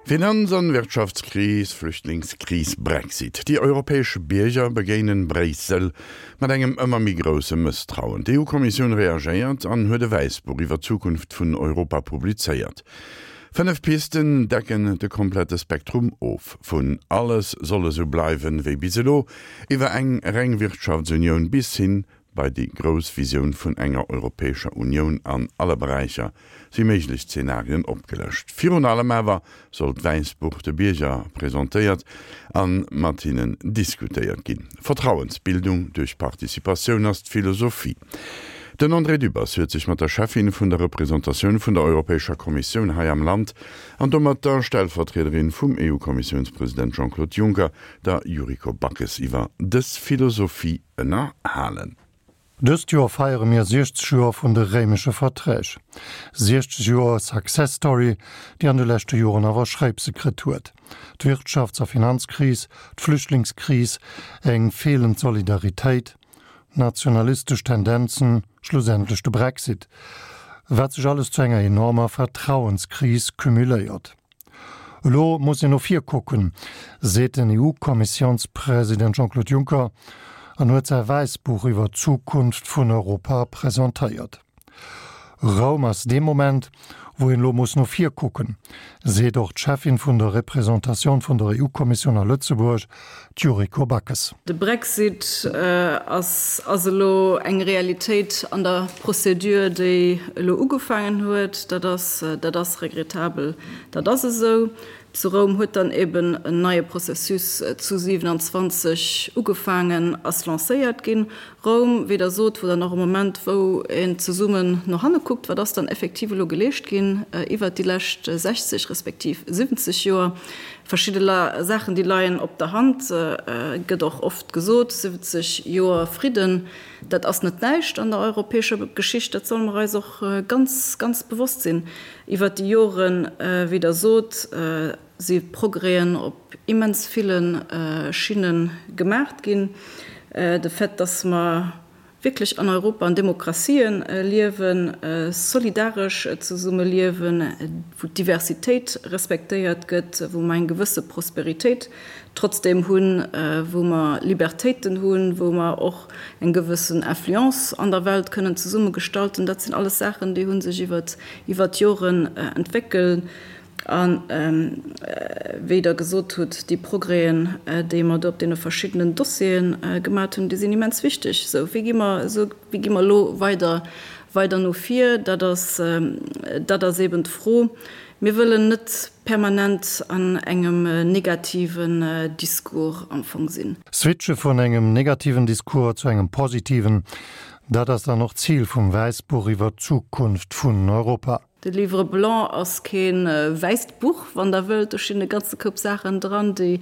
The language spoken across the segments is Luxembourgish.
Finanz an Wirtschaftskris, Flüchtlingskris, Brexit, déi europäesch Bierger begéinen Bréissel mat engem ëmmer méi grousse Mësstrauen. D'EU-Kommissioun reagéiert an huet e Wäissbuch iwwer d'Zukunft vun Europa publizéiert. 5 Pisten decken de komplette Spektrum of, vun alles soll esou bleiwen wéi bis elo, iwwer eng reng Wirtschaftsunioun bis hin bei déi grouss Visioun vun enger Europäescher Unioun an alle Beräicher si méiglech Zenarien opgelëscht. Virun allem awer soll d'Wäissbuch de Bierger presentéiert a mat hinnen diskutéiert ginn. Vertrauensbildung duerch Participatioun ass d'Philosophie. Den André Dübbers huet sech mat der Cheffin vun der Representatioun vun der Europäescher Kommissioun hei am Land an domat der Stellvertriederin vum EU-Kommissiounspresident Jean-Claude Juncker, der Yuriko Backes, iwwer dës Philosophie ënnerhalen. Dëst Joer feiere mir 60 Joer vun de Réimesche Verträg. 60 Joer Success Story, déi an de leschte Joren awer Schréipse kritt huet. D'Wirtschafts a Finanzkris, d'Flüchtlingskris, eng feelend Solidaritéit, nationalistesch Tendenzen, schlussendlech de Brexit, wat sech alles zu enger enormer Vertrauenskris cumuléiert. Elo muss een no vir kucken, seet den EU-Kommissiounspresident Jean-Claude Juncker an huet säi Wäissbuch iwwer d'Zukunft vun Europa presentéiert. Roum ass dee Moment, wou een elo muss no vir kucken, seet och d'Cheffin vun der Representatioun vun der EU-Kommissioun a Lëtzebuerg, d'Yuriko Backes. De Brexit ass ass elo eng Realitéit an der Procédure, déi elo ugefaangen huet. Dat ass dat ass regrettabel, dat ass esou. Zu Roum huet dann eben en neie Processus zu 27 ugefaangen, ass lancéiert ginn. Roum, wéi Der sot, wor dann och e Moment, wou een zesummen no hanne kuckt, wat ass dann effektiv elo geleescht ginn iwwert déi lescht 60 respektiv 70 Joer. Verschidde Saachen, déi leien op der Hand, gëtt och oft gesot, 70 Joer Fridden, dat ass net näischt an der europäescher Geschicht, dat solle mer eis och ganz, ganz bewosst sinn. Iwwert déi Joren, wéi Der sot, si Progrèsen op immens ville Schinne gemaacht ginn. De Fait, dass mer wierklech an Europa an Demokratien liewen, solidaresch zesumme liewen, wou d'Diversitéit respektéiert gëtt, wou mer eng gewësse Prosperitéit trotzdeem hunn, wou mer Libertéiten hunn, wou mer och eng gewëssen Influence an der Welt kënnen zesumme gestalten, dat sinn alles Saachen, déi hu sech iwwert d'Joren entwéckelt. A wéi Der gesot hutt, déi Progrèsen, déi mer do op deene verschiddenen Dossiere gemat hunn, déi sinn immens wichteg. Sou, wéi gi mer, esou, wéi gi mer elo weider, weider no vir? Dat ass, dat ass eeben d'Fro. Mir wëllen net permanent an engem negativen Discours am Fong sinn. Switche vun engem negativen Discours zu engem positiven, dat ass dann och d'Zil vum Wäissbuch iwwer d'Zukunft vun Europa. De Livre blanc ass kee wäisst Buch, wann Der wëllt. Do stinn e ganze Koup Saachen dran, déi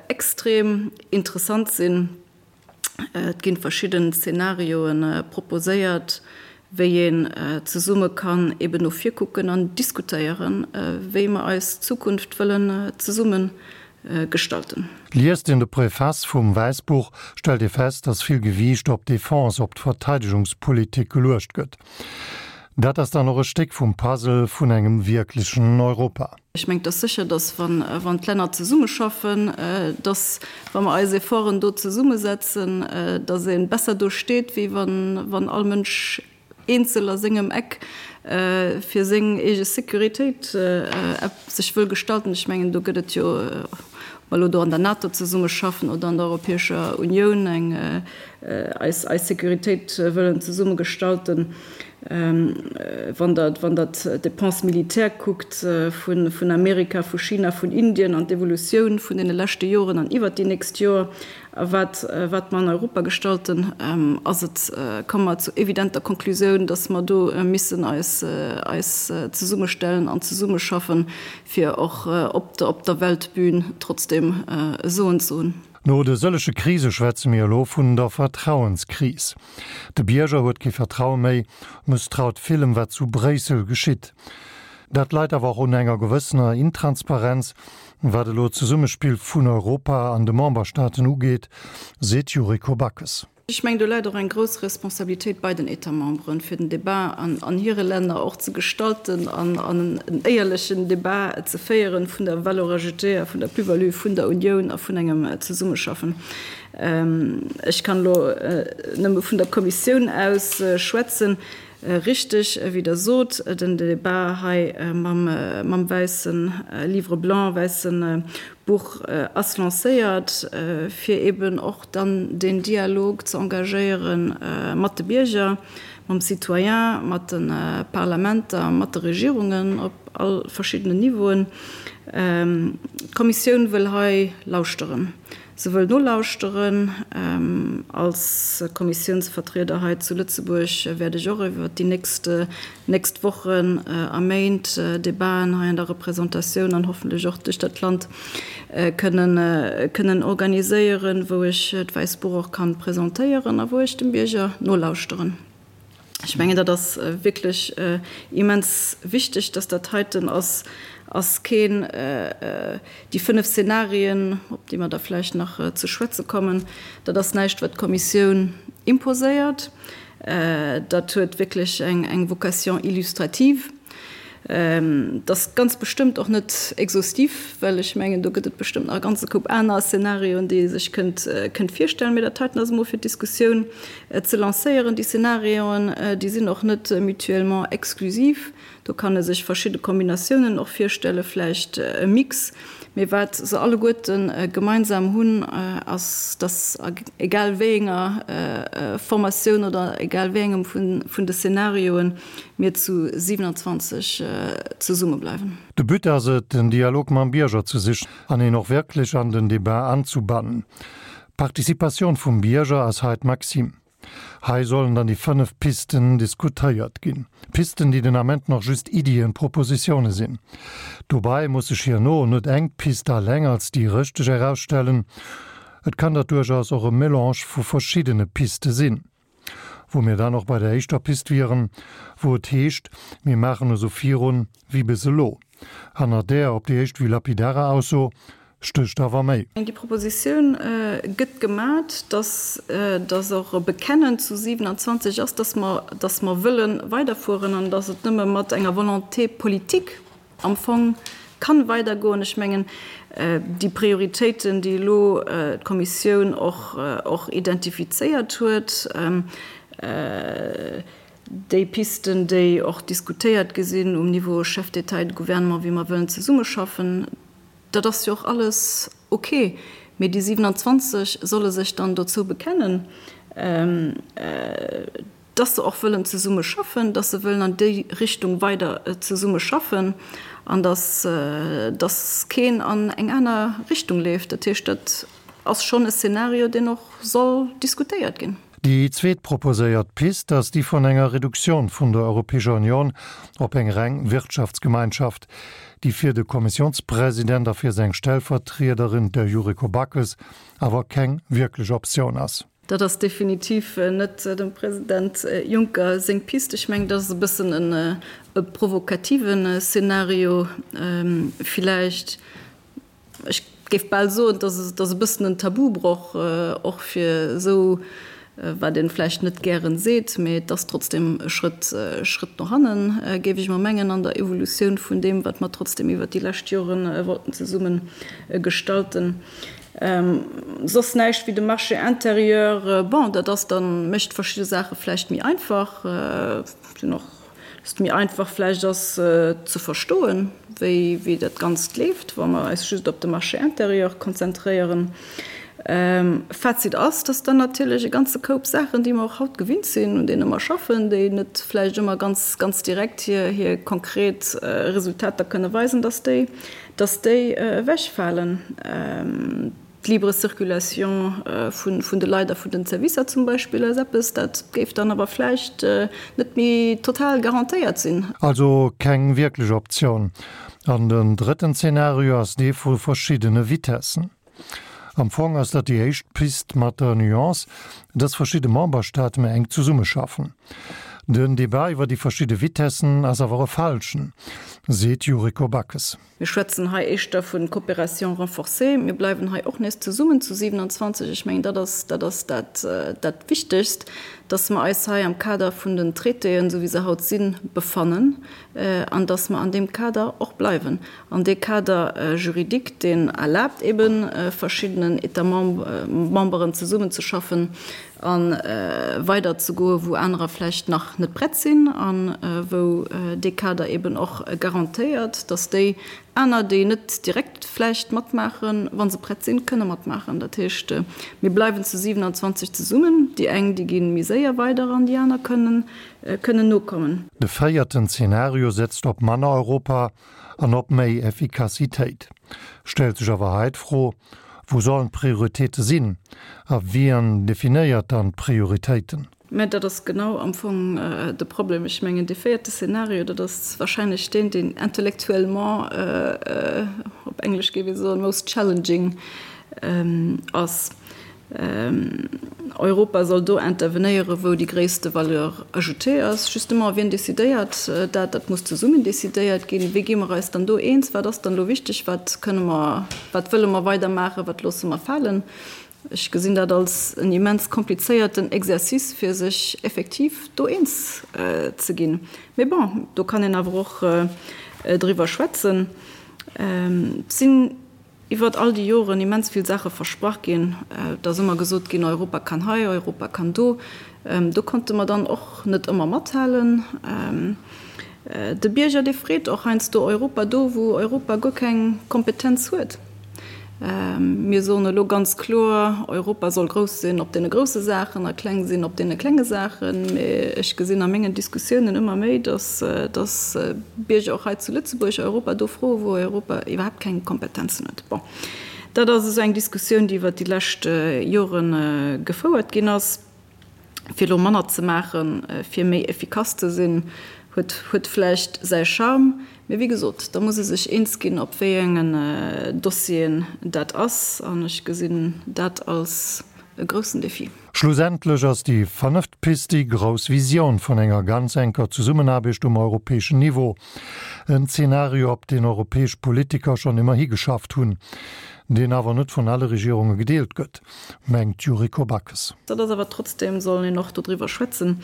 extrem interessant sinn. Et gi verschidden Zenarioe proposéiert, wéi een zesumme kann eben no vir kucken an diskutéieren, wéi mer eis Zukunft wëllen zesumme gestalten. Liest een de Préface vum Wäissbuch, stellt ee fest, datt vill Gewiicht op d'Defense, op d'Verteidegungspolitik geluecht gëtt. Dat ass dann och e Stéck vum Puzzle vun engem wierklechen Europa. Ech mengen, et ass sécher, datt wann d'Länner zesummeschaffen, datt wa mer eis Efforten do zesummesetzen, datt ee besser do steet, wéi wann all Mënsch eenzel a sengem Eck fir seng eege Sécuritéit sech wëll gestalten. Ech mengen, do gëtt et jo, ob mer elo do an der NATO zesummeschaffen oder an der Europäescher Unioun eng eis eis Sécuritéit wëllen zesumme gestalten. Wann Der wann Der d'Dépenses militaires kuckt vun vun Amerika, vu China, vun Indien an d'Evolutioun vun deene leschte Joren an iwwert déi nächst Joer a wat wat mer an Europa gestalten, ass et, komme mer zur evidenter Konklusioun, dass mer do missen eis eis zesummestellen an zesummeschaffen, fir och op der op der Weltbühn trotzdem e Soen ze hunn. No de sëllege Krise schwätze mir elo vun der Vertrauenskris. De Bierger huet kee Vertraue méi, mësstraut villem wat zu Bréissel geschitt. Dat leit awer och un enger gewëssener Intransparenz, wat elo d'Zesummespill vun Europa an de Memberstaaten ugeet, seet d'Yuriko Backes. Ech mengen, do läit och eng grouss Responsabilitéit bei den États-memberen, fir den Débat an hire Länner och ze gestalten an en éierlechen Débat ze féieren vun der Valeur ajoutée a vun der Plus-value vun der Unioun a vun engem Zesummeschaffen. Ech kann elo nëmme vun der Kommissioun aus schwätzen. Richteg, wéi Der sot, den Débat hei mam wäisse Livre blanc, wäisse Buch ass lancéiert, fir eben och dann deen Dialog ze engagéiere mat de Bierger, mam Citoyen, mat de Parlamenter, mat de Regierungen op all verschiddenen Niveauen. D'Kommissioun wëll hei lauschteren. Se wëll nolauschteren. Als Kommissiounsvertrieder hei zu Lëtzebuerg wäert ech och iwwert déi nächst nächst Wochen a Méint Debaten hei an der Représentatioun an hoffentlech och duerch dat Land kënnen kënnen organiséieren, wou ech d'Wäisst Buch och kann presentéieren a wou ech dem Bierger nolauschteren. Ech mengen, dat ass wierklech immens wichteg, dass dat heiten ass, ass keen, déi 5 Szenarien, op déi mer da vläicht nach ze schwätze kommen, dat ass näischt, wat d'Kommissioun imposéiert. Dat huet wierklech eng Vocation illustrative. Dat ass ganz bestëmmt och net exhaustiv, well ech mengen, do gëtt et bestëmmt nach e ganze Koup aner Szenarioen, déi ee sech kënnt kënnt virstellen. Mee dat heiten ass emol fir d'Diskussioun ze lancéieren. Déi Szenarioen, déi sinn och net mutuellement exclusiv. Do kann e sech verschidde Kombinatiounen och virstellen, vläicht e Mix. Mee wat se alleguerte gemeinsam hunn, ass, dass a egal wéi enger Formatioun oder egal wéi engem vun de Szenarioen, mir zu 27 zesumme bleiwen. De But ass et, den Dialog mam Bierger ze sichen an een och wierklech an den Debat anzubannen. D'Participatioun vum Bierger ass hei d'Maxime. Hei sollen dann déi 5 Pisten diskutéiert ginn. Pisten, déi den Ament nach just Iddien, Propositioune sinn. Dobei muss sech hierno net eng Pist alleng als déi richteg erausstellen. Et kann dat duerchaus och e Melange vu verschiddene Piste sinn. Wou mir dann och bei der éischter Pist wieren, wou et heescht, mir maachen esou virun wéi bis elo. Hanner där op déi éischt Vue lapidarer Ausso stécht awer méi. Déi Propositioun gëtt gemat, dass dass och e Bekennen zu 27 ass, dass mer dass mer wëlle weiderfueren an dass et nëmme mat enger Volonté politique am Fong kann weidergoen. Ech mengen, déi Prioritéiten, déi elo d'Kommissioun och och identifizéiert huet, déi Pisten, déi och diskutéiert gi sinn um Niveau Chefs d'État et de Gouvernement, wéi mer wëllen zesummeschaffen, dat ass jo och alles ok. Mee déi 27 solle sech dann dozou bekennen, dass se och wëllen zesumme schaffen, dass se wëllen an déi Richtung weider zesumme schaffen an dass, dass keen an eng aner Richtung leeft. Dat heescht, dat ass schonn e Szenario, deen och soll diskutéiert ginn. Déi zweet proposéiert Pist ass déi vun enger Reduktioun vun der Europäescher Union op eng reng Wirtschaftsgemeinschaft, déi fir de Kommissiounspresident a fir seng Stellvertriederin, der Yuriko Backes, awer keng wierklech Optioun ass. Dat ass definitiv net dem President Juncker seng Pist. Ech mengen, dat ass e bëssen e provokativen Szenario villäicht. Ech géif bal soen, dat ass e bëssen en Tabubroch och fir esou, wat ee vläicht net gären seet, mee et ass trotzdem e Schrëtt, Schrëtt no hannen, géif ech emol mengen, an der Evolutioun vun deem, wat mer trotzdem iwwert déi lescht Jore wollten zesumme gestalten. Soss näischt wéi de Marché intérieur. Bon, dat ass dann, mécht verschidde Saache vläicht méi einfach, sinn och, dass et méi einfach vläicht ass ze verstoen, wéi, wéi dat Ganzt leeft, wa mer eis just op de Marché intérieur konzentréieren. Fazit ass, dass dann natierlech e ganze Koup Saachen, déi mer och haut gewinnt sinn, un deene mer schaffen, déi net vläicht ëmmer ganz, ganz direkt hir, hir konkret Resultater kënne weisen, dass déi dass déi ewechfalen, d'libre Circulation vun de Leit a vun den Servicer zum Beispill ass eppes, dat géif dann awer vläicht net méi total garantéiert sinn. Also keng wierklech Optioun. An den drëtten Zeenario ass dee vu verschiddene Vitessen. Am Fong ass dat déi éischt Pist mat der Nuance, dass verschidde Memberstaate méi enk zesummeschaffen. Den Debat iwwer déi verschidde Vitessen ass awer e falschen, seet d'Yuriko Backes. Mir schwätzen hei éischter vu Coopération renforcée. Mir bleiwen hei och nees zesummen zu 27. Ech mengen, dat ass, dat ass dat, dat Wichtegst, dass mer eis hei am Kader vun den Traitéen, esou wéi se haut sinn, befannen an dass mer an deem Kader och bleiwen. An dee Kader juridique, deen erlaabt eben verschiddenen États memberen zesummenzeschaffen a weiderzegoen, wou anerer vläicht nach net prett sinn a wou dee Kader eben och garantéiert, dass déi aner, déi net direkt vläicht matmaachen, wa se prett sinn, kënne matmaachen. Dat heescht, mir bleiwen zu 27 zesummen. Déi eng, déi gi méi séier weider an déi aner kënnen kënnen nokommen. De véierten Zeenario setzt op manner Europa an op méi Effikassitéit. Stellt sech awer hei d'Fro, Wou sollen d'Prioritéite sinn a wien definéiert dann d'Prioritéiten? Mä dat ass genau am Fong de Problem. Ech mengen, dee véierte Szenario, dat ass wahrscheinlech deen, deen intellectuellement, op Englesch géif ee soen, most challenging ass. Europa soll do intervenéieren, wou déi gréisste Valeur ajoutée ass. Justement, wien decidéiert dat? Dat muss zesummen decidéiert ginn. Wéi gi mer eis dann do eens? Wat ass dann elo wichteg? Wat kënne mer, wat wëlle mer weidermaachen? Wat loosse mer falen? Ech gesinn dat als en immens komplizéierten Exercice, fir sech effektiv do eens ze ginn. Mee bon, do kann een awer och driwwer schwätzen. Et sinn Iwwert all déi Joren immens vill Saache versprach ginn. Et ass ëmmer gesot ginn, Europa kann hei, Europa kann do. Do konnte mer dann och net ëmmer mathalen. De Bierger, dee freet och heiansdo Europa do, wou Europa guer keng Kompetenz huet. Mir soen elo ganz kloer, Europa soll grouss sinn op deene grousse Saachen a kleng sinn op deene klenge Saachen. Mee ech gesinn a mengen Diskussiounen ëmmer méi, datt, datt Bierger och hei zu Lëtzebuerg Europa do froen, wou Europa iwwerhaapt keng Kompetenzen huet. Bon, dat ass esou eng Diskussioun, déi iwwert déi lescht Jore gefouert ginn ass. Fir elo manner ze maachen, fir méi effikass ze sinn, huet, huet vläicht säi Charme. Mee wéi gesot, da muss ee sech eens ginn, op wéi engen Dossieren dat ass. An ech gesinn dat als e groussen Defi. Schlussendlech ass déi fënneft Pist déi grouss Visioun vun enger ganz enker Zesummenaarbecht um europäeschen Niveau. En Zeenario, op deen europäesch Politiker schonn ëmmer higeschafft hunn, deen awer net vun alle Regierunge gedeelt gëtt, mengt d'Yuriko Backes. Dat ass awer trotzdem, soll een och dodriwwer schwätzen.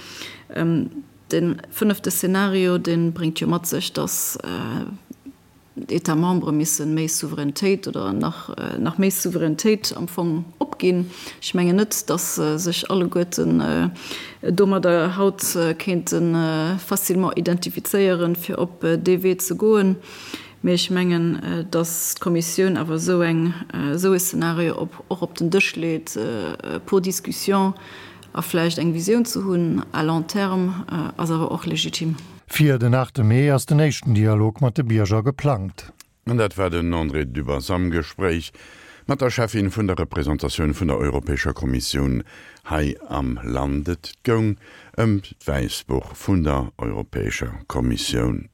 De fënnefte Szenario, dee bréngt jo mat sech, datt d'États membres misse méi Souveränitéit oder nach nach méi Souveränitéit am Fong opginn. Ech mengen net, datt sech alleguerten domadder haut kéinte facilement identifizéieren, fir op dee Wee ze goen. Mee ech mengen, datt d'Kommissioun awer esou eng, esou e Szenario op och op den Dësch leet pour discussion a vläicht eng Visioun ze hunn à long terme, ass awer och legitim. Fir den 8 Mee ass den éischten Dialog mat de Bierger geplangt. An dat war den André Dübbers am Gespréich mat der Cheffin vun der Representatioun vun der Europäescher Kommissioun hei am Land. Et goung ëm d'Wäissbuch vun der Europäescher Kommissioun.